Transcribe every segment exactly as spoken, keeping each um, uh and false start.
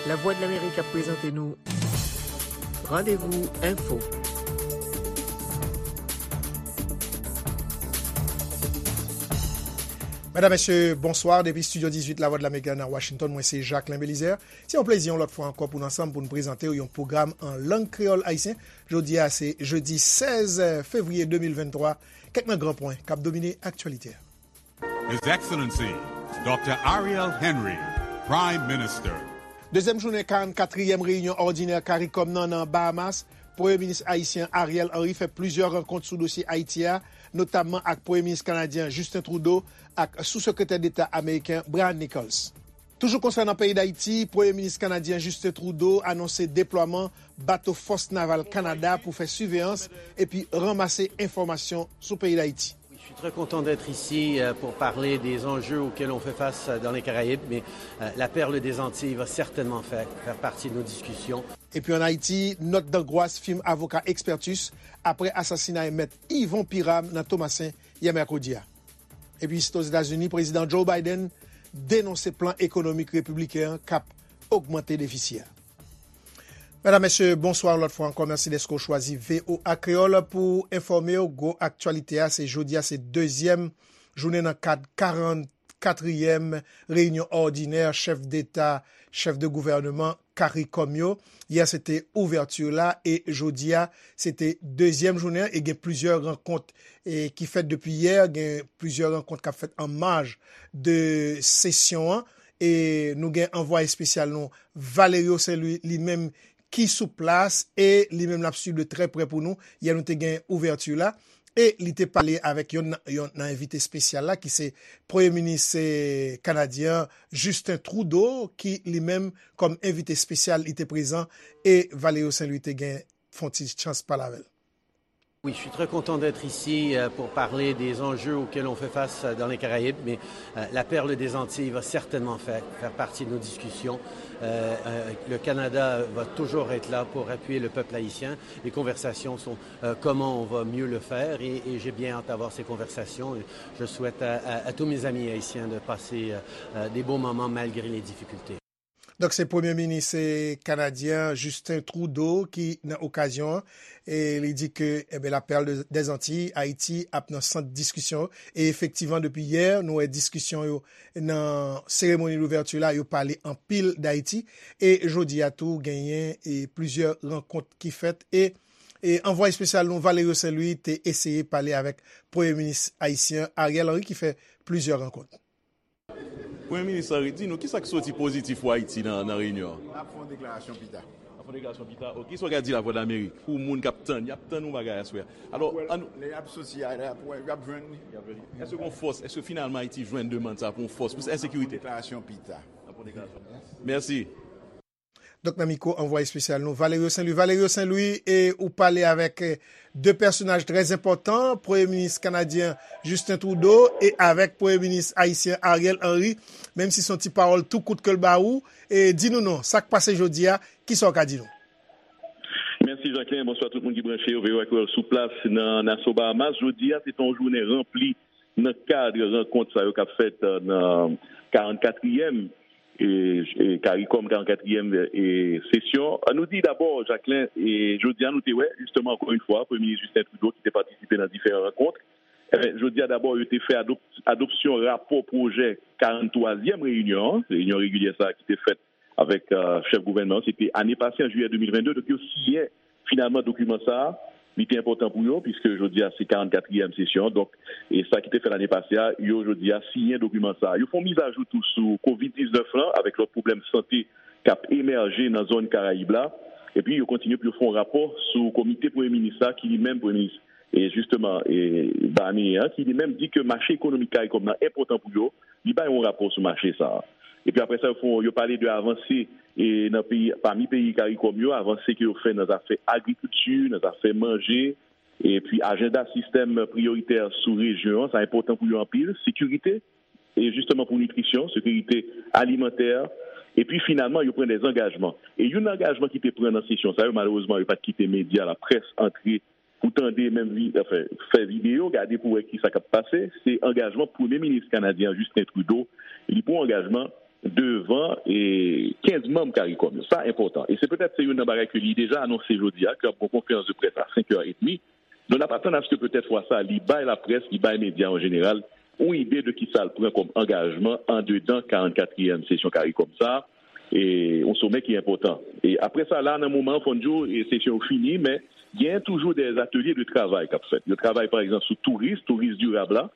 Lavwadlamerik ap prezante nou Randevou Enfo. Medam, mesye, bonswa. Depi Estidyo dizuit Lavwadlamerik nan Washington, mwen se Jacquelin Belizaire. Se yon plezi yon lòt fwa ankò pou n ansanm pou n prezante w yon pwogram an lang kreyòl ayisyen. Jodi a se jedi sèz fevriye de mil venntwa. Kèk nan gran pwen k ap domine aktyalite a. His Excellency Doctor Ariel Henry, Prime Minister. Dezyèm jounen karannkatriyèm reyinyon òdinè CARICOM nan nan Bahamas, Premye Minis ayisyen Ariel Henry fè plizyè rankont sou dosye Ayiti a, notamman ak Premye Minis kanadyen Justin Trudeau ak Sou-Sekretè Deta ameriken Brian Nichols. Toujou konsènan peyi Dayiti, Premye Minis kanadyen Justin Trudeau anonse deplwaman bato Fòs Naval Kanada pou fè siveyans epi ranmase enfòmasyon sou peyi Dayiti. Oui, je suis très content d'être ici, euh, pour parler des enjeux auxquels on fait face, euh, dans les Caraïbes, mais, euh, la perle des Antilles va certainement faire, faire partie de nos discussions. Epi ann Ayiti, nòt dangwas fim avoka Expertus apre asasinay Mèt Yvon Piram nan Tomasen yè mèkredi a. Epi isit Ozetazini, Prezidan Joe Biden denonse plan ekonomik repibliken an k ap ogmante defisi a. Medam, mesye, bonswa yon lòt fwa ankò. Mèsi dèske w chwazi V O A Kreyòl pou enfòme w. Gwo aktyalite a, se jodi a, se dezyèm jounen nan kad karannkatriyèm reyinyon òdinè chèf deta, chèf de gouvèneman CARICOM yo. Yè, se te ouvèti la, e jodi a, se te dezyèm jounen an, e gen plizyè rankont, e, ki fèt depi yè, gen plizyè rankont k ap fèt an maj de sesyon an. E nou gen anvwaye espesyal nou, Valerio Saint Louis, li menm ki sou plas e li menm l ap swiv de trè prè pou nou. Yè nou te gen ouvèti la e li te pale avèk yonn nan, yonn nan envite espesyal la ki se Premye Minis, eh, kanadyen an, Justin Trudeau, ki li menm kòm envite espesyal li te prezan e Valerio Saint Louis te gen fè yon ti chans pale avè l. Oui, je suis très content d'être ici, euh, pour parler des enjeux auxquels on fait face, euh, dans les Caraïbes, mais, euh, la perle des Antilles va certainement faire, faire partie de nos discussions. Euh, euh, le Canada va toujours être là pour appuyer le peuple haïtien. Les conversations sont, euh, comment on va mieux le faire et, et j'ai bien hâte d'avoir ces conversations. Je souhaite à, à, à tous mes amis haïtiens de passer, euh, euh, des bons moments malgré les difficultés. Donk, se Premye Minis, eh, kanadyen Justin Trudeau ki nan okazyon an, e li di ke, enben, la Perle de, des Antilles, Ayiti, ap nan sant diskisyon. E efektivman, depi yè, nou wè diskisyon yo nan seremoni louvèti la, yo pale anpil d Ayiti. E jodi a tou, genyen, e, plizyè rankont ki fèt. E, e anvwaye espesyal nou, Valerio Saint Louis, te eseye pale avèk Premye Minis ayisyen Ariel Henry ki fè plizyè rankont. Premye Minis Henry, di nou, kisa k soti pozitif pou Ayiti nan, nan reyinyon an? N ap fè yon deklarasyon pita. N ap fè yon deklarasyon pita. Ok, kisa w ka di Lavwadlamerik pou moun k ap tann, y ap tann yon bagay aswè a? Alò, ann... Lè y ap soti a, y ap wè, y ap jwenn li. Y ap jwenn li. Èske gon fòs? Èske finalman Ayiti jwenn demann sa pou yon fòs, pou ensekirite? N ap fè yon deklarasyon pita. N ap fè yon deklarasyon pita. Mèsi. Donk, nan mikwo anvwaye espesyal nou, Valerio Saint Louis. Valerio Saint Louis, e ou pale avèk, eh, de pèsonaj trè enpòtan, Premye Minis kanadyen Justin Trudeau e avèk Premye Minis ayisyen Ariel Henry, menm si se yon ti pawòl tou kout ke l ba ou, e di nou non, sa k pase jodi a, kisa w ka di nou? Mèsi, Jacquelin. Bonswa tout moun ki branche yo, V O A Kreyòl sou plas nan Nassau, Bahamas. Jodi a, se te yon jounen ranpli nan kad rankont sa yo k ap fèt, eh, nan karannkatriyèm e, e, CARICOM, karannkatriyèm, e, sesyon. An nou di dabò, Jacquelin, e, jodi a nou te wè, jisteman, ankò yon fwa, Premye Minis Justin Trudeau ki te patisipe nan diferan rankont. Enben, jodi a dabò, yo te fè adop-, adopsyon rapò pwojè karanntwazyèm reyinyon an, reyinyon regilyè sa a ki te fèt avèk, e, chèf gouvènman an, se te ane pase an jiyè de mil vennde, donk yo siyen finalman dokiman sa a, li te enpòtan pou yo, piske jodi a se karannkatriyèm sesyon. Donk, e sa ki te fèt ane pase a, yo jodi a siyen dokiman sa a. Yo fè yon mizajou tou sou kovid diznèf lan, avèk lòt pwoblèm sante k ap emèje nan zòn Karayib la. Epi yo kontinye pou yo fè yon rapò sou komite premye minis la, ki li menm premye minis, e jisteman, e Barnier an, ki li menm di ke mache ekonomik Karikòm nan enpòtan pou yo. Li bay yon rapò sou mache sa a. Epi apre sa, yo fè, yo pale de avanse, e nan peyi, pami peyi Karikòm yo, avanse ke yo fè nan zafè agrikilti, nan zafè manje, epi ajanda sistèm priyoritè sou rejyon an, sa enpòtan pou yo anpil, sekirite, e jisteman pou nitrisyon, sekirite alimantè, epi finalman, yo pran de zangajman. E youn nan angajman ki te pran nan sesyon sa yo, malerezman, yo pa t kite medya, laprès antre pou tande, menm vi-, anfen, fè videyo, gade pou wè kisa k ap pase. Se angajman Premye Minis kanadyen an, Justin Trudeau. Li pran angajman devan e kenz manm CARICOM yo. Sa enpòtan. E se petèt se youn nan bagay ke li deja anonse jodi a, ke ap gon konferans de près a senk è edmi. Donk, n ap atann aske petèt fwa sa, li bay laprès, li bay medya an jeneral, yon ide de kisa l pran kòm angajman andedan karannkatriyèm sesyon CARICOM sa, e yon somè ki enpòtan. E apre sa, la, nan moman an, fò n di w, e sesyon yo fini, men gen toujou de atelye de travay k ap fèt. Yo travay, pa egzanp, sou touris, touris dirab la,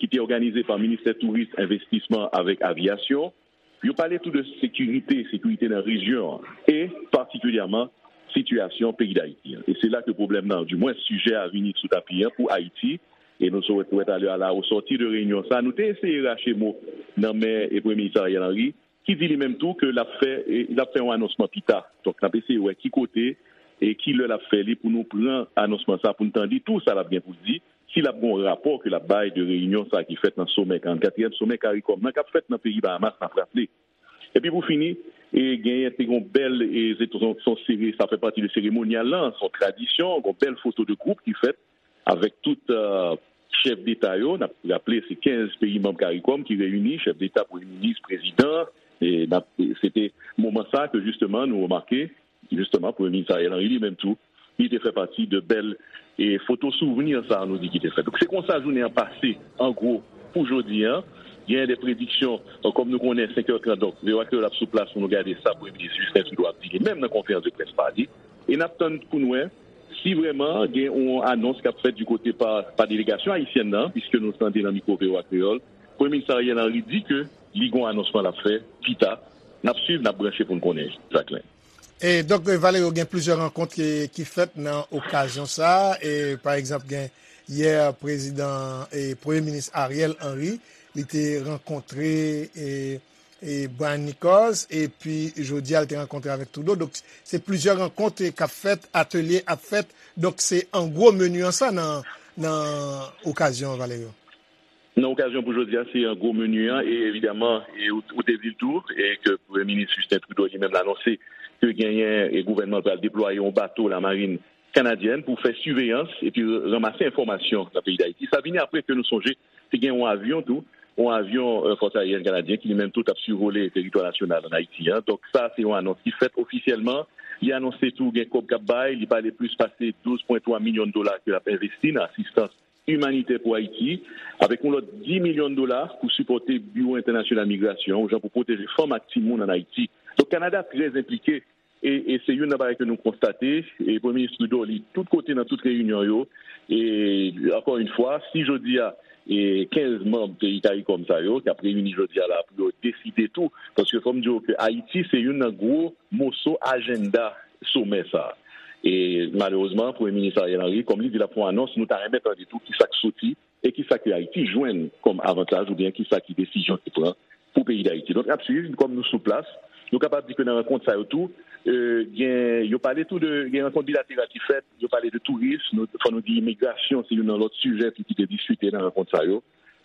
ki te òganize pa Ministè Touris, Envestisman avèk Avyasyon. Yo pale tou de sekirite, sekirite nan rejyon an, e patikilyèman sitiyasyon peyi Dayiti an. E se la ke pwoblèm nan, dimwen sijè a vini sou tapi an pou Ayiti, e nou sot wè talè a la, o sòti de reyinyon sa, nou te eseye rache mo nan men e Premye Minis Ariel Henry, ki di li menm tou ke l ap fè, e, l ap fè yon anonsman pita. Donk, n ap eseye wè ki kote e ki lè l ap fè li pou nou pran anonsman sa, pou n tande tou sa l ap gen pou l di, si l ap gen yon rapò ke l ap bay de reyinyon sa ki fèt nan somè, karannkatriyèm somè CARICOM nan k ap fèt nan peyi Bahamas, n ap raple. Epi pou fini, e genyen te gon bèl, e se se yon sere, sa fè pati de seremonyal lan, se yon tradisyon, gon bèl foto de gwoup ki fèt avèk tout, euh, chèf deta yo. N ap raple, se kenz peyi manm CARICOM ki reyini, chèf deta, premye minis, prezidan. E n ap, se te moman sa ke jisteman nou remake, jisteman, Premye Minis Ariel Henry li menm tou, li te fè pati de bèl e foto souvni sa nou di ki te fèt. Donk, se konsa jounen an pase, an gwo, pou jodi an. Gen de prediksyon, euh, kòm nou konnen, senk è trant, donk, V O A Kreyòl ap sou plas pou nou gade sa Premye Minis Justin Trudeau ap di li menm nan konferans de près pa li. E n ap tann pou n wè si vrèman gen yon anons k ap fèt di kote pa, pa delegasyon ayisyèn nan, piske nou tande nan mikwo V O A Kreyòl, Premye Minis Ariel Henry di ke li gen yon anonsman l ap fè pita. N ap swiv, n ap branche pou n konnen, Jacquelin. E donk, e, Valerio, gen plizyè rankont ki, ki fèt nan okazyon sa a. E, pa egzanp, gen yè prezidan e Premye Minis Ariel Henry, li te rankontre e, e Brian Nichols, epi jodi a, li te rankontre avèk Trudeau. Donk, se plizyè rankont e k ap fèt, atelye ap fèt. Donk, se an gwo meni an sa nan, nan okazyon an, Valerio. Nan okazyon pou jodi a, se yon gwo meni an, e evidaman, e ou, ou te di l tou, e ke Premye Minis Justin Trudeau li menm l anonse ke genyen, e gouvènman l pral deplwaye yon bato lamarin kanadyèn pou fè siveyans epi ranmase enfòmasyon nan peyi Dayiti. Sa vini apre ke nou sonje, te gen yon avyon tou, yon avyon, e, Fòs Aeryèn Kanadyen ki li menm tou t ap sivole teritwa nasyonal ann Ayiti an. Donk, sa, se yon anons ki fèt ofisyèlman. Li anonse tou gen kòb k ap bay, li pale plis pase douz pwen twa milyon dola ke l ap envesti nan asistans imanitè pou Ayiti, avèk yon lòt dis milyon dola pou sipòte Biwo Entènasyonal Migrasyon, yon jan pou pwoteje fanm ak timoun ann Ayiti. Donk, Kanada trè enplike, e, e se youn nan bagay ke nou konstate, e Premye Minis Trudeau, li tout kote nan tout reyinyon yo, e ankò yon fwa, si jodi a, e kenz manm peyi CARICOM sa yo, k ap reyini jodi a la pou yo deside tou, paske fò m di w ke Ayiti se youn nan gwo moso ajannda somè sa a. E malerezman, Premye Minis Ariel Henry, kòm li di l ap fè yon anons, nou ta renmen tande tou kisa k soti e kisa ke Ayiti jwenn kòm avantaj oubyen kisa ki desizyon ki pran pou peyi Dayiti. Donk, n ap swiv, kòm nou sou plas, nou kapab di ke nan rankont sa yo tou, e, gen, yo pale tou de, gen rankont bilateral ki fèt, yo pale de touris, nou, fò nou di imigrasyon, se youn nan lòt sijè tou ki te diskite nan rankont sa yo.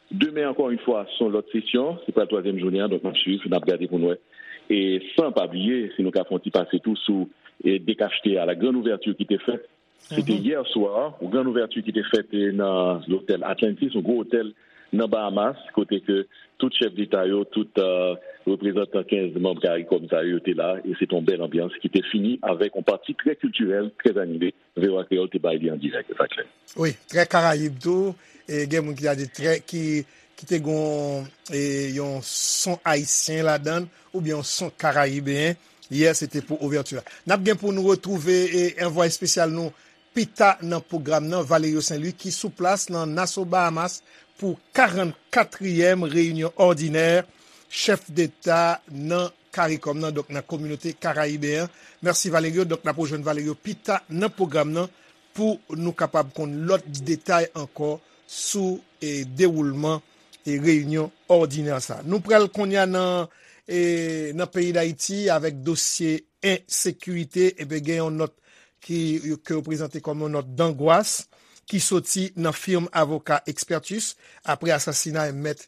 Demen, ankò yon fwa, se yon lòt sesyon, se pral twazyèm jounen an, donk n ap swiv, n ap gade pou n wè. E san pa bliye, si nou ka fè yon ti pase tou sou, e, dekachte a, la grande ouverture ki te fèt, se te yè swa, yon grande ouverture ki te fèt, e, nan lotèl Atlantis, yon gwo otèl nan Bahamas, kote ke tout chèf deta yo, tout, e, reprezantan kenz manm CARICOM sa yo, yo te la, e se te yon bèl anbyans ki te fini avèk yon pati trè kiltirèl, trè anime, V O A Kreyòl te bay li an dirèk, Jacquelin. Wi, trè Karayib tou. E gen moun ki ta di trè, ki, ki te gon, e, yon son ayisyen ladan l, oubyen yon son karayibeyen. Yè, se te pou ouvèti a. N ap gen pou nou retwouve, e, anvwaye espesyal nou pita nan pwogram nan, Valerio Saint Louis, ki sou plas nan Nassau, Bahamas, pou karannkatriyèm reyinyon òdinè chèf deta nan CARICOM nan, donk nan kominote karayibeyen an. Mèsi, Valerio. Donk, n ap rejwenn Valerio pita nan pwogram nan pou nou kapab konn lòt detay ankò sou, e, dewoulman, e, reyinyon òdinè sa. Nou pral kounye a nan, e, nan peyi Dayiti avèk dosye ensekirite. Ebyen, gen yon nòt ki, ke yo prezante kòm yon nòt dangwas ki soti nan fim avoka Expertus apre asasinay mèt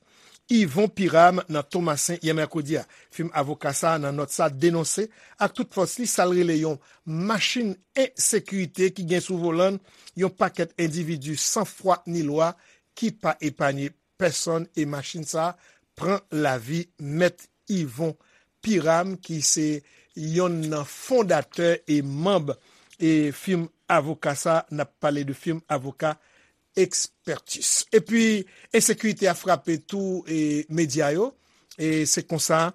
Yvon Pyram nan Tomasen yè mèkredi a. Fim avoka sa a nan nòt sa denonse ak tout fòs li sa l rele yon machin ensekirite ki gen sou volan l yon pakèt endividi san fwa ni lwa ki pa epanye pèsonn e machin sa a pran lavi mèt Yvon Piram, ki se yonn nan fondatè e manm e fim avoka sa, n ap pale de fim avoka Expertis. Epi, ensekirite a frape tou e medya yo. E se konsa,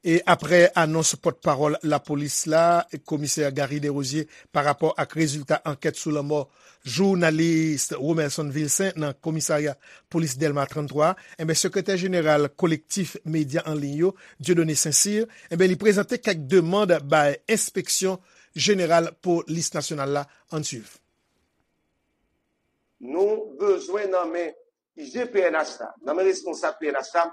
e aprè anons pòtpawòl lapolis la, komisè Garry Desrosiers, pa rapò ak rezilta ankèt sou lanmò jounalis Romelson Vilcin nan komisarya polis Dèlma trannntwa, enben, sekretè jeneral Kolektif Medya an Liy yo, Dieudonné Saint-Cyr, enben, li prezante kèk demann bay Enspeksyon Jeneral Polis Nasyonal la. Ann swiv. Nou bezwen nan men I G P N H la, nan men responsab P N H la,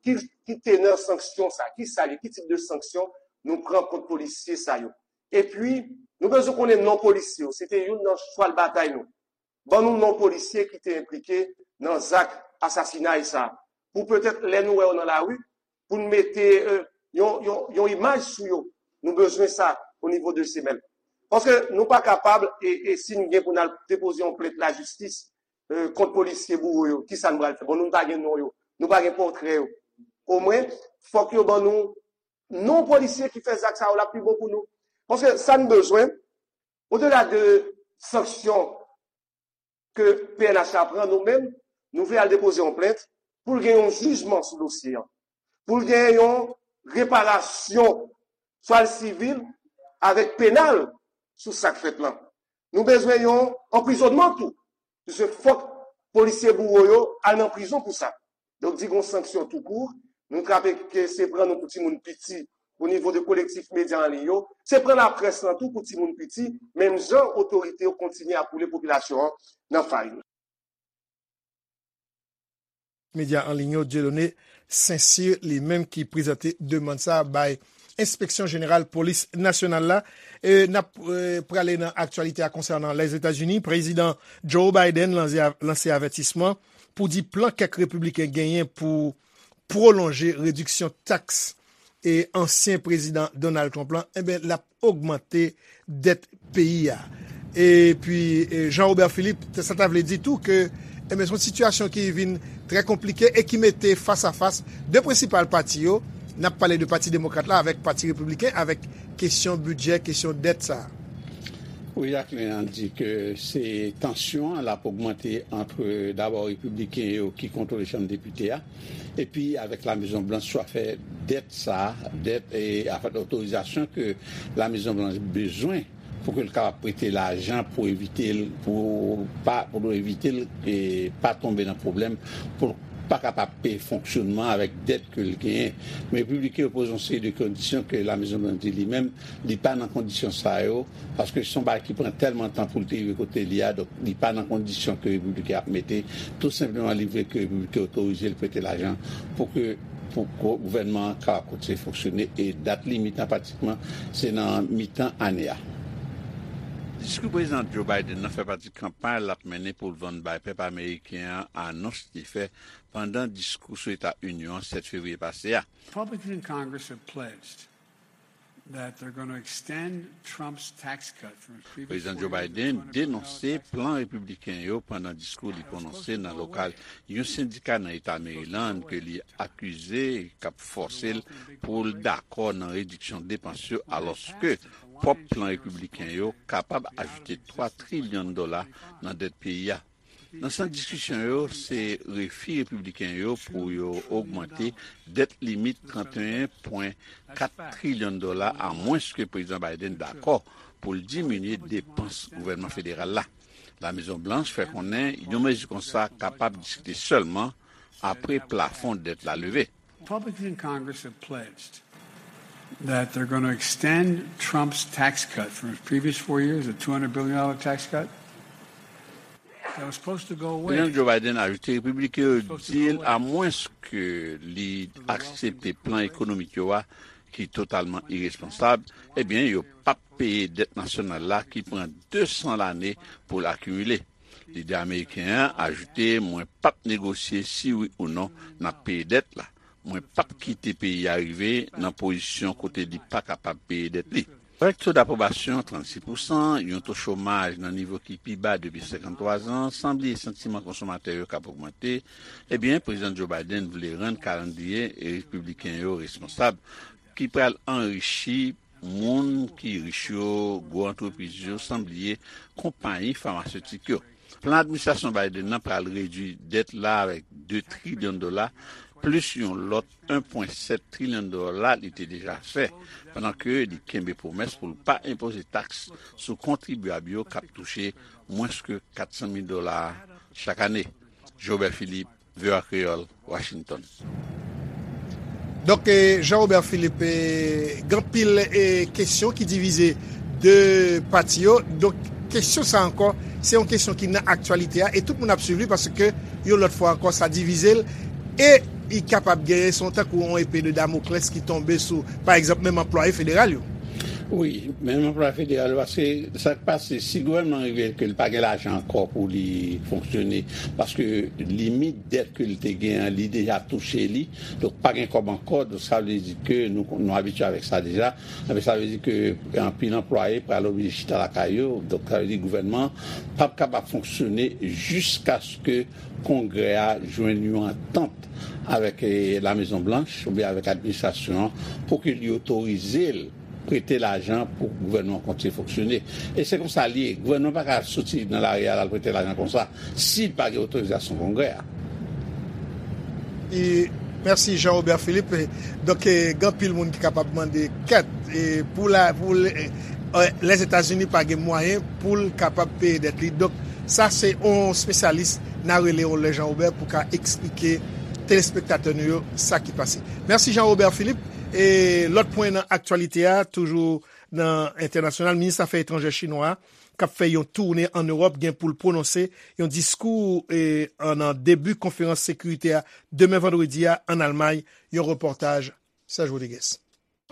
ki, ki tenè sanksyon sa, ki sa ye, ki tip de sanksyon nou pran kont polisye sa yo. Epi, nou bezwen konnen non polisye yo, se te youn nan chwal batay nou. Ban nou non polisye ki te enplike nan zak asasinay sa, pou petèt lè nou wè yo nan lari, pou n mete, euh, yon, yon, yon imaj sou yo. Nou bezwen sa o nivo de semèn. Paske nou pa kapab, e, e si n gen pou n al depoze yon plent lajistis, euh, kont polisye bouwo yo, ki sa n pral fè? Bon, nou pa gen non yo, nou pa gen pòtrè yo. Omwen, fòk yo ban nou non polisye ki fè zak sa yo, l ap pi bon pou nou. Paske sa n bezwen, odela de sanksyon ke P N H la pran, nou menm, nou vle al depoze yon plent pou l gen yon jijman sou dosye an, pou l gen yon reparasyon, swa l sivil avèk penal, sou sa k fèt lan. Nou bezwen yon anprizonnman tou, piske fòk polisye bouwo yo al nan prizon pou sa. Donk, di gon sanksyon tou kou, nou trape ke se pran nou pou timoun piti o nivo de Kolektif Medya an Liy yo, se pran laprès lan tou pou timoun piti, menm jan otorite yo kontinye ap woule popilasyon an nan farin. Medya an Liy yo, Dieudonné Saint-Cyr, li menm ki prezante demann sa bay Enspeksyon Jeneral Polis Nasyonal la. E n ap, e, prale nan aktyalite a konsènan Lèzetazini. Prezidan Joe Biden lanse, lanse avètisman pou di plan kèk repibliken genyen pou pwolonje rediksyon taks e ansyen prezidan Donald Trump lan, enben, l ap ogmante dèt peyi a. Epi, e, Jean Robert Philippe, sa ta vle di tou ke, enben, se yon sitiyasyon ki vin trè konplike e ki mete fas a fas de prensipal pati yo. N ap pale de Pati Demokrat la avèk Pati Repibliken, avèk kesyon bidjè, kesyon dèt sa a. Wi, Jacqueline, an di ke se tansyon an l ap ogmante ant, dabò, repibliken yo ki kontwole Chanm Depite a, epi avèk La Mezon Blanch sou afè dèt sa a, dèt, e, afè otorizasyon ke La Mezon Blanch bezwen pou ke l kapab prete lajan pou evite l, pou pa, pou evite l, e, pa tonbe nan pwoblèm, pou l pa kapab peye fonksyonman avèk dèt ke l genyen. Men repibliken yo poze yon seri de kondisyon ke La Mezon Blanch di li menm, li pa nan kondisyon sa yo, paske se yon bagay ki pran tèlman tan pou l te rive kote li a, donk li pa nan kondisyon ke repibliken ap mete. Tou senpleman, li vle ke repibliken otorize l prete lajan pou ke, pou gou-, gouvènman an kapab kontinye fonksyone, e dat limit lan pratikman se nan mitan ane a. Diskou Prezidan Joe Biden nan fè pati kanpay l ap mennen pou l vann bay pèp ameriken an, anons li fè pandan diskou sou Eta Inyon an sèt fevriye pase a. Republicans in Congress have pledged that they're going to extend Trump's tax cut from his previous Prezidan Joe Biden denonse plan repibliken yo pandan diskou li pwononse nan lokal yon sendika nan Eta Maryland ke li akize k ap fòse l pou l dakò nan rediksyon depans yo, alòske pwòp plan repibliken yo kapab ajoute twa trilyon dola nan dèt peyi a. Nan sant diskisyon yo, se refi repibliken yo pou yo ogmante dèt limit trannteyen pwen kat trilyon dola, amwenske Prezidan Biden dakò pou l diminye depans gouvènman federal la. La Mezon Blanch fè konnen yon mezi konsa kapab diskite sèlman apre plafon dèt la leve. Republicans in Congress have pledged that they're going to extend Trump's tax cut from his previous four years, a two hundred billion dollar tax cut. That was supposed to go away. Prezidan Joe Biden ajoute, repibliken yo di l, amwenske li aksepte plan ekonomik yo a, ki totalman iresponsab, ebyen, yo p ap peye dèt nasyonal la ki pran de san lane pou l akimile. Lidè ameriken an ajoute, mwen p ap negosye si wi ou non n ap peye dèt la. Mwen p ap kite peyi a rive nan pozisyon kote li pa kapab peye dèt li. Avèk to dapwobasyon trannsis pousan, yon to chomaj nan nivo ki pi ba depi senkanntwa zan, san bliye santiman konsomatè yo k ap ogmante, ebyen, Prezidan Joe Biden vle rann kalandriye repibliken yo responsab, ki pral anrichi moun ki rich yo, gwo antrepriz yo, san bliye konpayi famasetik yo. Plan administrasyon Biden nan pral redui dèt la avèk de trilyon dola, plis yon lòt en pwen sèt trilyon dola li te deja fè, pandan ke li kenbe pwomès pou l pa enpoze taks sou kontribyab yo k ap touche mwens ke kat san mil dola chak ane. Jobert Philippe, V O A Kreyòl, Washington. Donk, eh, Jean Robert Philippe, eh, gen anpil, eh, kesyon ki divize de pati yo. Donk, kesyon sa ankò, se yon kesyon ki nan aktyalite a, e tout moun ap swiv li paske yon lòt fwa ankò, sa divize l, e li kapab genyen, se yon tankou yon epe de Damoclès ki tonbe sou, pa egzanp, menm anplwaye federal yo. Wi, menm anplwaye federal yo, paske sa k pase, si gouvènman an rive ke l pa gen lajan ankò pou li fonksyone, paske limit dèt ke l te gen an, li deja touche li, donk pa gen kòb ankò, donk sa vle di ke nou, nou abitye avèk sa deja, men sa vle di ke anpil anplwaye pral oblije chita lakay yo, donk sa vle di gouvènman p ap kapab fonksyone jiskaske Kongrè a jwenn yon antant avèk, eh, La Mezon Blanch oubyen avèk administrasyon an pou ke li otorize l prete lajan pou gouvènman an kontinye fonksyone. E se konsa li ye. Gouvènman pa ka soti nan lari a, l al prete lajan konsa si l pa gen otorizasyon Kongrè a. E, mèsi Jean Robert Philippe. Donk, eh, gen anpil moun ki kapab mande kèt, eh, pou la, pou le, eh, Lèzetazini pa gen mwayen pou l kapab peye dèt li. Donk, sa se yon espesyalis n a rele yon lè Jean Robert pou ka eksplike telespektatè nou yo sa ki pase. Mèsi Jean Robert Philippe. E lòt pwen nan aktyalite a, toujou nan entènasyonal, minis afè etranjè chinwa a, k ap fè yon toune ann Ewòp, gen pou l pwononse yon diskou, e, an, nan debi konferans sekirite a demen vandredi a ann Almay, yon repòtaj Serge Rodriguez.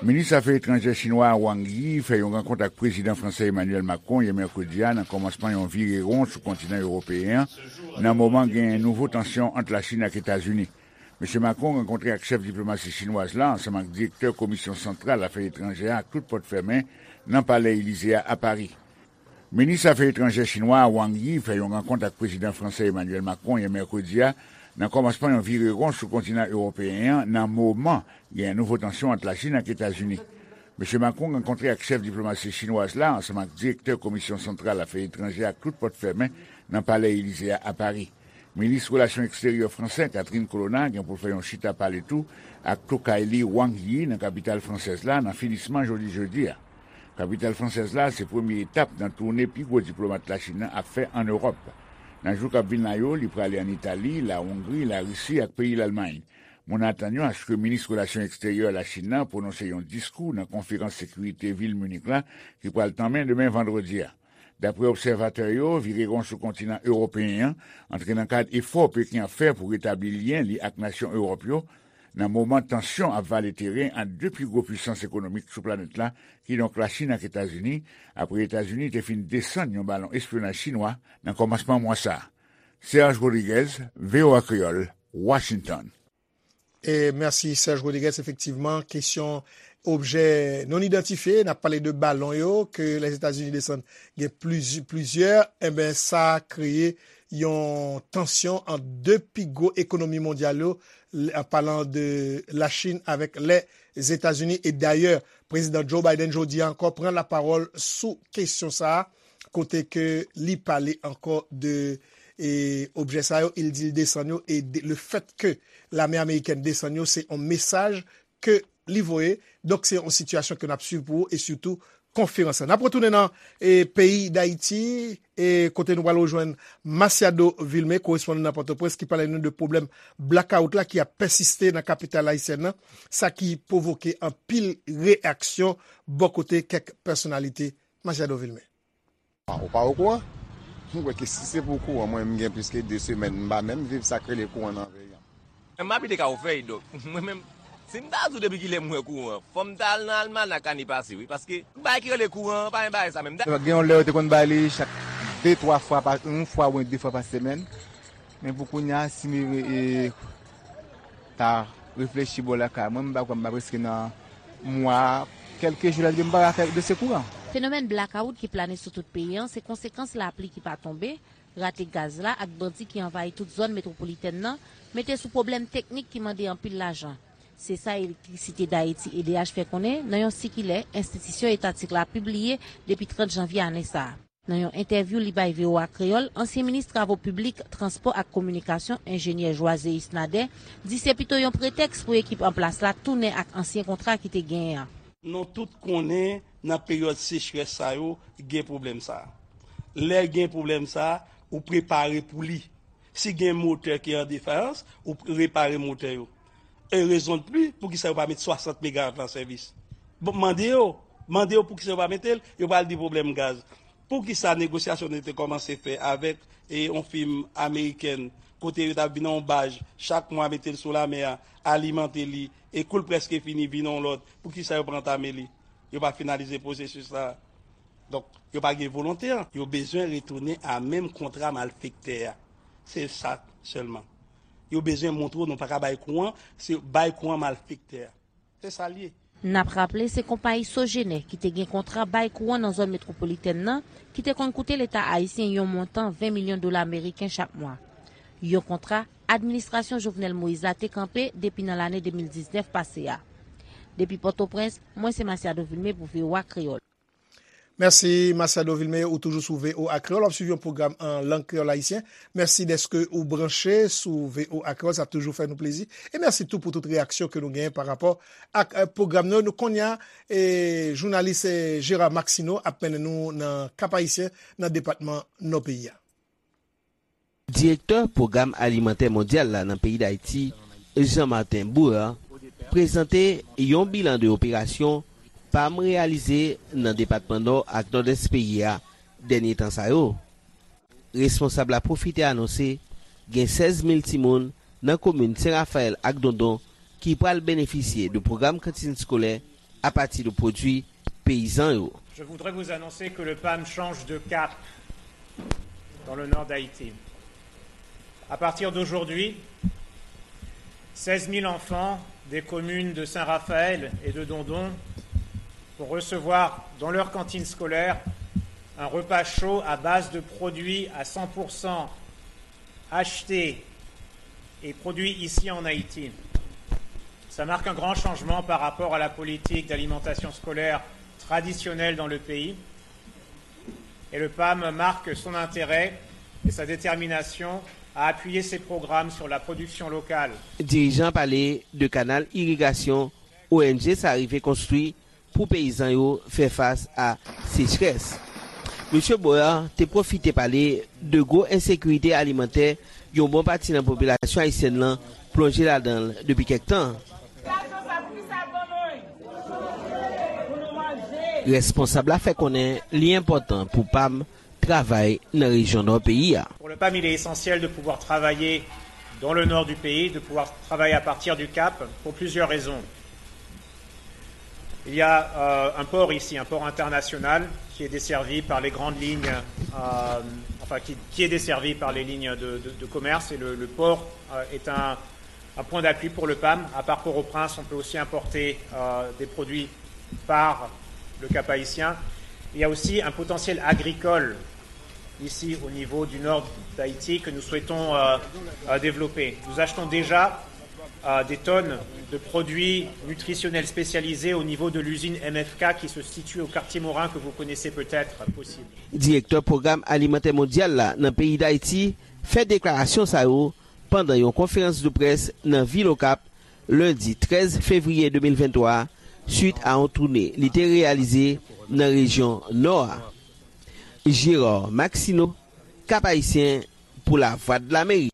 Minis afè etranjè chinwa a Wang Yi fè yon rankont ak prezidan fransè Emmanuel Macron yè mèkredi a nan kòmansman yon vire won sou kontinan ewopeyen an, nan moman gen nouvo tansyon ant Lachin ak Etazini. Mesye Macron rankontre ak chèf diplomasi chinwaz la ansanm ak direktè Komisyon Santral Afè Etranjè a ak tout pòt fèmen nan Palè Elize a, a Pari. Minis afè etranjè chinwa a Wang Yi fè yon rankont ak prezidan fransè Emmanuel Macron yè mèkredi a nan kòmansman yon vire won sou kontinan ewopeyen an, nan moman gen nouvo tansyon ant Lachin ak Etazini. Mesye Macron rankontre ak chèf diplomasi chinwaz la ansanm ak direktè Komisyon Santral Afè Etranjè ak tout pòt fèmen nan Palè Elize a, a Pari. Minis relasyon eksteryè fransè Catherine Colonna gen pou l fè yon chita pale tou ak tokay li Wang Yi nan kapital fransèz la nan finisman jodi jedi a. Kapital fransèz la se premye etap nan toune pi gwo diplomat Lachin nan ap fè ann Ewòp. Nan jou k ap vin la yo, li prale ann Itali, Lawongri, Larisi ak peyi Lalmay. Moun atann yo aske minis relasyon eksteryè Lachin nan pwononse yon diskou nan konferans sekirite vil Minik la ki pral tanmen demen vandredi a. Daprè obsèvatè yo, vire won sou kontinan ewopeyen an antre nan kad efò Peken ap fè pou retabli lyen li ak nasyon Ewòp yo, nan moman tansyon ap vale teren ant de pi gwo pwisans ekonomik sou planèt la, kidonk Lachin ak Etazini, apre Etazini te fin desann yon balon espyonaj chinwa nan kòmansman mwa sa a. Serge Rodriguez, V O A Kreyòl, Washington. E mèsi Serge Rodriguez. Efektivman, kesyon objè non idantifye, n ap pale de balon yo ke Lèzetazini desann gen pliz-, plizyè, enben sa kreye yon tansyon ant de pi gwo ekonomi mondyal yo, l-, an palan de Lachin avèk Lèzetazini. E dayè, prezidan Joe Biden jodi a ankò pran lapawòl sou kesyon sa a, kote ke li pale ankò de, e, objè sa yo, e l di l desann yo, e de, le fèt ke lame amerikèn desann yo, se yon mesaj ke li voye. Donk, se yon sitiyasyon ke n ap swiv pou ou, e sitou konferans la. N ap retounen nan, e, peyi Dayiti, e, kote nou pral rejwenn Masiado Vilmé, korespondan nan Pòtoprens, ki pale nou de pwoblèm blakawout la ki ap pèsiste nan kapital ayisyèn nan, sa ki pwovoke anpil reyaksyon bò kote kèk pèsonalite. Masiado Vilmé. Ou pa okouran? M kwè ke si se pou kouran, mwen, m gen plis ke de semèn, m pa menm viv sa k rele kouran nan peyi a. Mwen, m abite Kafou Fèy, donk, mwen menm, si m ta di w depi kilè m wè kouran, fò m ta al nan almanak ane pase, wi, paske bagay ki rele kouran an, pa gen bagay sa menm. Gen yon lè yo te konn ba li chak de, twa fwa pa, yon fwa oubyen de fwa pa semèn. Men pou kounye a, si m, e, ta reflechi bò lakay mwen, m pa kwè m pa prèske nan mwa Kèlke jou lè l vin, m pa ka fè dosye kouran. Fenomèn blakawout ki plane sou tout peyi an se konsekans lapli ki pa tonbe, rate gaz la ak bandi ki anvayi tout zòn metwopolitèn nan mete sou pwoblèm teknik ki mande anpil lajan. Se sa Elektrisite Dayiti, E D H, fè konnen nan yon sikilè enstitisyon etatik la pibliye depi trant janvye ane sa a. Nan yon entèvyou li bay V O A Kreyòl, ansyen minis travo piblik, transpò ak kominikasyon, enjenyè Joiséus Nader, di se pito yon pretèks pou ekip an plas la tounen ak ansyen kontra ki te genyen an. Nou tout konnen nan peryòd sechrès sa yo gen pwoblèm sa. Lè gen pwoblèm sa, ou prepare pou li. Si gen motè ki an defayans, ou repare motè yo. E rezon de pli, poukisa yo pa met swasant megawat la an sèvis? Bon, mande yo, mande yo poukisa yo pa mete l, yo pral di pwoblèm gaz. Poukisa negosyasyon nou te kòmanse fè avèk e yon fim amerikèn, kote yo t ap vin nan yon baj, chak mwa mete l sou lamè a, alimante li, e kou l prèske fini, vin yon lòt, poukisa yo pa antame li? Yo pa finalize pwosesis la. Donk, yo pa gen volonte an. Yo bezwen retounen a menm kontra malfektè a. Se sa sèlman. Yo bezwen montre w nou pa ka bay kouran, se bay kouran malfektè a. Se sa l ye. N ap raple, se konpayi Sogener ki te gen kontra bay kouran nan zòn metwopolitèn nan, ki te konn koute Leta ayisyen yon montan ven milyon dola ameriken chak mwa. Yon kontra administrasyon Jovenel Moïse la te kanpe depi nan lane de mil diznèf pase a. Depi Pòtoprens, mwen se Masiado Vilmé pou V O A Kreyòl. Mèsi, Masiado Vilmé, ou toujou sou V O A Kreyòl, w ap swiv yon pwogram an lang kreyòl ayisyen. Mèsi dèske ou branche sou V O A Kreyòl, sa toujou fè nou plezi. E mèsi tou pou tout reyaksyon ke nou genyen pa rapò ak eh, pwogram nou. Nou kounye a, eh, jounalis eh, Gérard Maxineau ap mennen nou nan Kap Ayisyen, nan depatman Nò peyi a. Direktè Pwogram Alimantè Mondyal la nan peyi Dayiti, Jean Martin Bouheur, prezante yon bilan de operasyon PAM reyalize nan depatman Nò ak Nòdès peyi a dènye tan sa yo. Responsab la pwofite anonse gen sèz mil timoun nan komin Sen Rafayèl ak Dondon ki pral benefisye de pwogram kantin skolè apati de pwodui peyizan yo. Je voudrais vous annoncer que le PAM change de cap dans le nord d'Haïti. À partir d'aujourd'hui, seize mille enfants des communes de Saint-Raphaël et de Dondon vont recevoir dans leur cantine scolaire un repas chaud à base de produits à cent pour cent achetés et produits ici en Haïti. Ça marque un grand changement par rapport à la politique d'alimentation scolaire traditionnelle dans le pays. Et le PAM marque son intérêt et sa détermination à appuyer ses programmes sur la production locale. Dirijan pale de kanal irigasyon O N G sa rive konstwi pou peyizan yo fè fas a sechrès. Mesye Boyer te pwofite pale de gwo ensekirite alimantè yon bon pati nan popilasyon ayisyèn lan plonje ladan l depi kèk tan. Responsab la fè konnen li enpòtan pou PAM travay nan rejyon nò peyi a. Pour le PAM, il est essentiel de pouvoir travailler dans le nord du pays, de pouvoir travailler à partir du Cap pour plusieurs raisons. Il y a euh, un port ici, un port international qui est desservi par les grandes lignes, euh, enfin qui, qui est desservi par les lignes de, de- de commerce et le, le port euh, est un, un point d'appui pour le PAM. À part Port-au-Prince, on peut aussi importer euh, des produits par le Cap-Haïtien. Il y a aussi un potentiel agricole ici au niveau du nord d'Haïti que nous souhaitons euh, euh, développer. Nous achetons déjà euh, des tonnes de produits nutritionnels spécialisés au niveau de l'usine M F K qui se situe au quartier Morin que vous connaissez peut-être aussi. Direktè Pwogram Alimantè Mondyal la nan peyi Dayiti fè deklarasyon sa yo pandan yon konferans de près nan vil Okap lendi trèz fevriye de mil venntwa a, swit a yon toune li te reyalize nan rejyon Nò a. Gérard Maxineau, Cap Haïtien, pou Lavwadlamerik.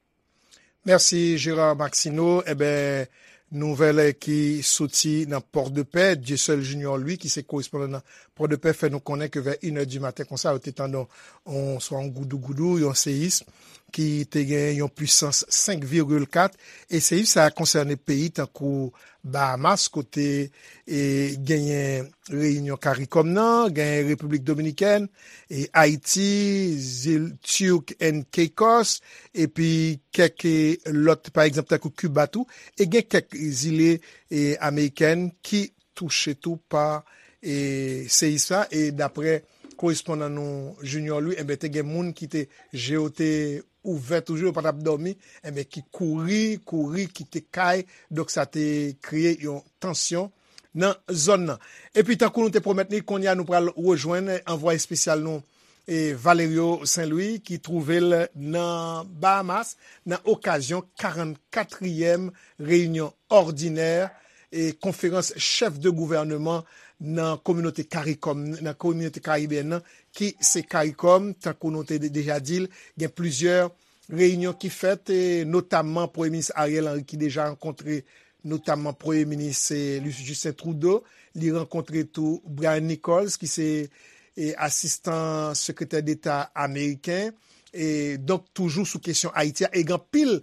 Mèsi, Gérard Maxineau. Eben, nouvèl ki soti nan Pòdepè, Dieuseul Junior Louis, ki se korespondan nan Pòdepè, fè nou konnen ke vè inè di maten konsa, yo te tande yon, swa yon goudougoudou, yon seyis, ki te gen yon pwisans senk vigil kat. E seyis sa a konsène peyi tankou Bahamas, kote e, genyen Reyinyon Karikòm nan, genyen Repiblik Dominikèn, e, Ayiti, zil Turk and Caicos, epi kèk e, lòt, pa egzanp, tankou Kiba tou, e gen kèk zile e, amerikèn ki touche tou pa e seyis la, e daprè korespondan nou Junior Louis, enben, te gen moun ki te, je yo te ouvè toujou, yo pa t ap dòmi, enben, ki kouri, kouri, kite kay, donk sa te kreye yon tansyon nan zòn nan. Epi, tankou nou te pwomèt li, kounye a nou pral rejwenn anvwaye espesyal nou, e Valerio Saint-Louis, ki twouve l nan Bahamas, nan okazyon karannkatriyèm reyinyon òdinè e konferans chèf de gouvènman nan kominote CARICOM, nan kominote karibeyèn nan, ki se CARICOM, tankou nou te de-, deja di l, gen plizyè reyinyon ki fèt, e notamman Premye Minis Ariel Henry ki deja rankontre notamman Premye Minis, e, Justin Trudeau, li rankontre tou Brian Nichols, ki se, e, asistan sekretè deta ameriken, e donk toujou sou kesyon Ayiti a, e gen anpil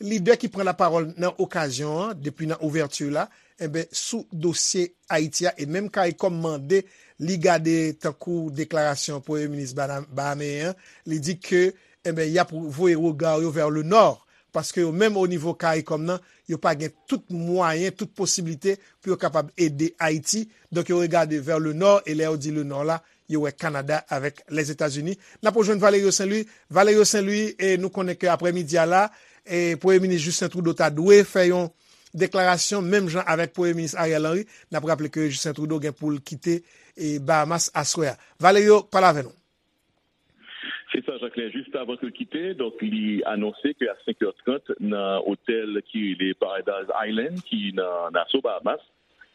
lidè ki pran lapawòl nan okazyon an, depi nan ouvèti la, enben, sou dosye Ayiti a, e menm CARICOM mande li gade tankou deklarasyon Premye Minis bana-, bahameyen an, li di ke, enben, y ap voye rega yo vers le nord, paske yo menm o nivo CARICOM nan, yo pa gen tout mwayen, tout posiblite pou yo kapab ede Ayiti. Donk, yo regade vers le nord, e lè yo di le nord la, yo wè Kanada avèk Lèzetazini. N ap rejwenn Valerio Saint-Louis. Valerio Saint-Louis, e nou konnen ke aprèmidi a la, e Premye Minis Justin Trudeau ta dwe fè yon deklarasyon, menm jan avèk Premye Minis Ariel Henry. N ap raple ke Justin Trudeau gen pou l kite, e Bahamas aswè a. Valerio, pale avè nou. Se sa, Jacquelin. Jis avan ke l kite, donk, li anonse ke a senk è trant, nan otèl ki rele Paradise Island, ki nan Nassau, Bahamas,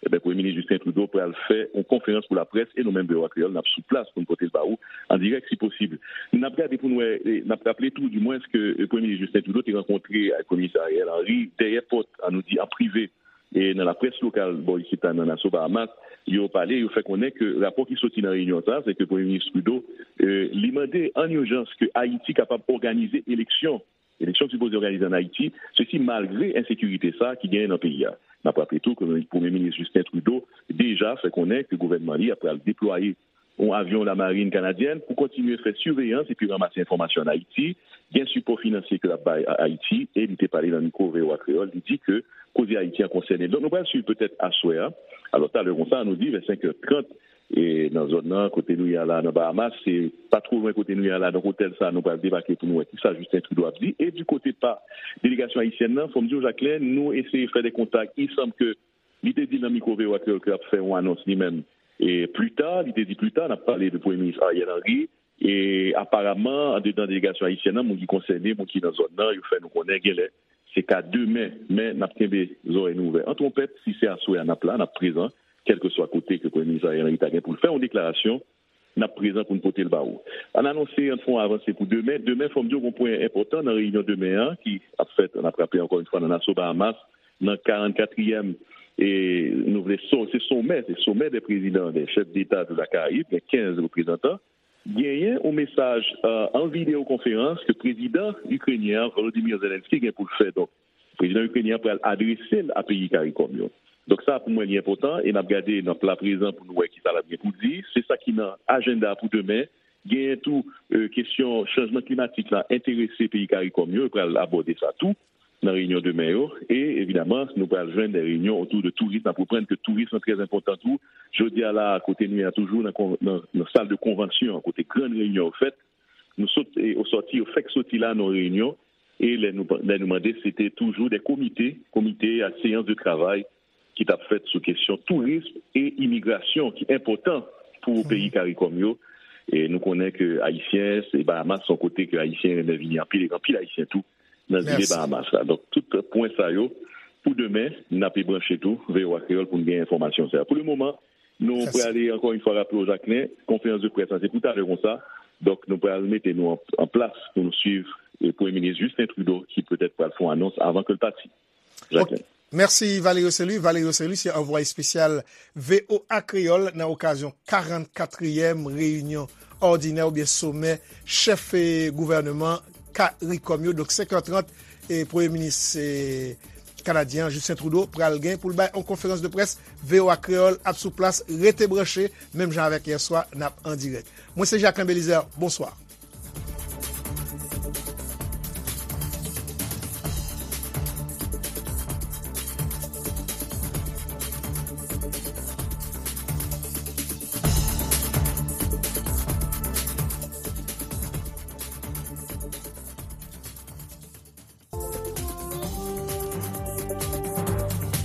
ebyen, Premye Minis Justin Trudeau pral fè yon konferans pou laprès, e nou menm, V O A Kreyòl, n ap sou plas pou n pote l ba ou an dirèk, si posib. N ap gade pou n wè, e n ap raple tou, dimwens, ke, e, Premye Minis Justin Trudeau te rankontre ak Premye Minis Ariel Henry dèyè pòt, an nou di, an prive, e nan laprès lokal bò isit la nan Nassau, Bahamas, yo pale, yo fè konnen ke rapò ki soti nan reyinyon sa a, se ke Premye Minis Trudeau, e, li mande an ijans ke Ayiti kapab òganize eleksyon. Eleksyon ki sipoze òganize ann Ayiti, sesi malgre ensekirite sa a ki genyen nan peyi a. N ap raple tou ke Premye Minis Justin Trudeau deja fè konnen ke gouvènman li a pral deplwaye yon avyon lamarin kanadyèn pou kontinye fè siveyans epi ranmase enfòmasyon ann Ayiti. Gen sipò finansye ke l ap bay a Ayiti, e li te pale nan mikwo V O A Kreyòl, li di ke koze Ayiti an konsène l. Donk, nou pral swiv petèt aswè a. Alò, talè konsa, nou di, vè senk è trant, e nan zòn nan, kote nou ye a la, nan Bahamas, se pa two lwen kote nou ye a la, donk otèl sa a, nou pral debake pou nou wè kisa Justin Trudeau ap di. E di kote pa delegasyon ayisyèn nan, fò m di w, Jacquelin, nou eseye fè de kontak. Il semble que li te di nan mikwo V O A Kreyòl ke l ap fè yon anons li menm. E pli ta, li te di pli ta, n ap pale de Premye Minis Ariel Henry. E aparamman, andedan delegasyon ayisyèn nan, moun ki konsène, moun ki nan zòn nan, yo fè nou konnen genlè se ka demen, men n ap kenbe zòrèy nou ouvè. An twonpèt, si se aswè a n ap la, n ap prezan, kèlkeswa kote ke Premye Minis Ariel Henry ta gen pou l fè yon deklarasyon, n ap prezan pou n pote l ba ou. Ann anonse, ann fè yon avanse pou demen. Demen, fò m di w, gon pwen enpòtan nan reyinyon demen an, ki ap fèt, n ap raple ankò yon fwa, nan Nassau, Bahamas, nan karannkatriyèm, e nou vle so-, se somè, se somè dè prezidan, dè chèf deta de la Karayib, gen kenz reprezantan. Genyen yon mesaj, e, an videyo konferans ke prezidan ikrenyen an, Volodymyr Zelensky, gen pou l fè. Donk, prezidan ikrenyen an pral adrese l a peyi Karikòm yo. Donk, sa, pou mwen, li enpòtan, e n ap gade, n ap la prezan pou nou wè kisa l ap gen pou di. Se sa ki nan ajanda pou demen. Genyen tou, e, kesyon chanjman klimatik la enterese peyi Karikòm yo, yo pral abòde sa tou nan reyinyon demen yo. E, evidaman, nou pral jwenn de reyinyon otou de touris. N ap reprann ke touris lan trè enpòtan tou. Jodi a la, kote nou ye a toujou nan kon-, nan, nan sal de konvansyon an, kote grann reyinyon yo fèt, nou sot, e, o sòti, yo fèk soti la nan reyinyon. E lè nou, lè nou mande, se te toujou de komite, komite ak seyans de travay ki t ap fèt sou kesyon tourism e imigrasyon ki enpòtan pou peyi Karikòm yo. E nou konnen ke Ayisyen, se Bahamas, se yon kote ke Ayisyen renmen vini anpil, e anpil Ayisyen tou nan zile Bahamas la. Donk, tout pwen sa yo, pou demen, n ape branche tou V O A Kreyòl pou n gen enfòmasyon sa yo. Pou le moman, nou prale ankò yon fwa raple w, Jacquelin, konferans de près la, se pou talè konsa. Donk, nou pral mete nou an, an plas pou nou swiv, e, Premye Minis Justin Trudeau, ki petèt pral fè yon anons avan ke l pati. Jacquelin. Mèsi, Valerio Saint-Louis. Valerio Saint-Louis se anvwaye espesyal V O A Kreyòl nan okazyon karannkatriyèm reyinyon òdinè oubyen somè chèf, e, gouvènman Karikòm yo. Donk, senk è trant, e, Premye Minis, e, kanadyen an, Justin Trudeau, pral gen pou l bay yon konferans de près. V O A Kreyòl ap sou plas, rete branche, menm jan avèk yè swa, n ap an dirèk. Mwen se Jacquelin Belizaire, bonswa.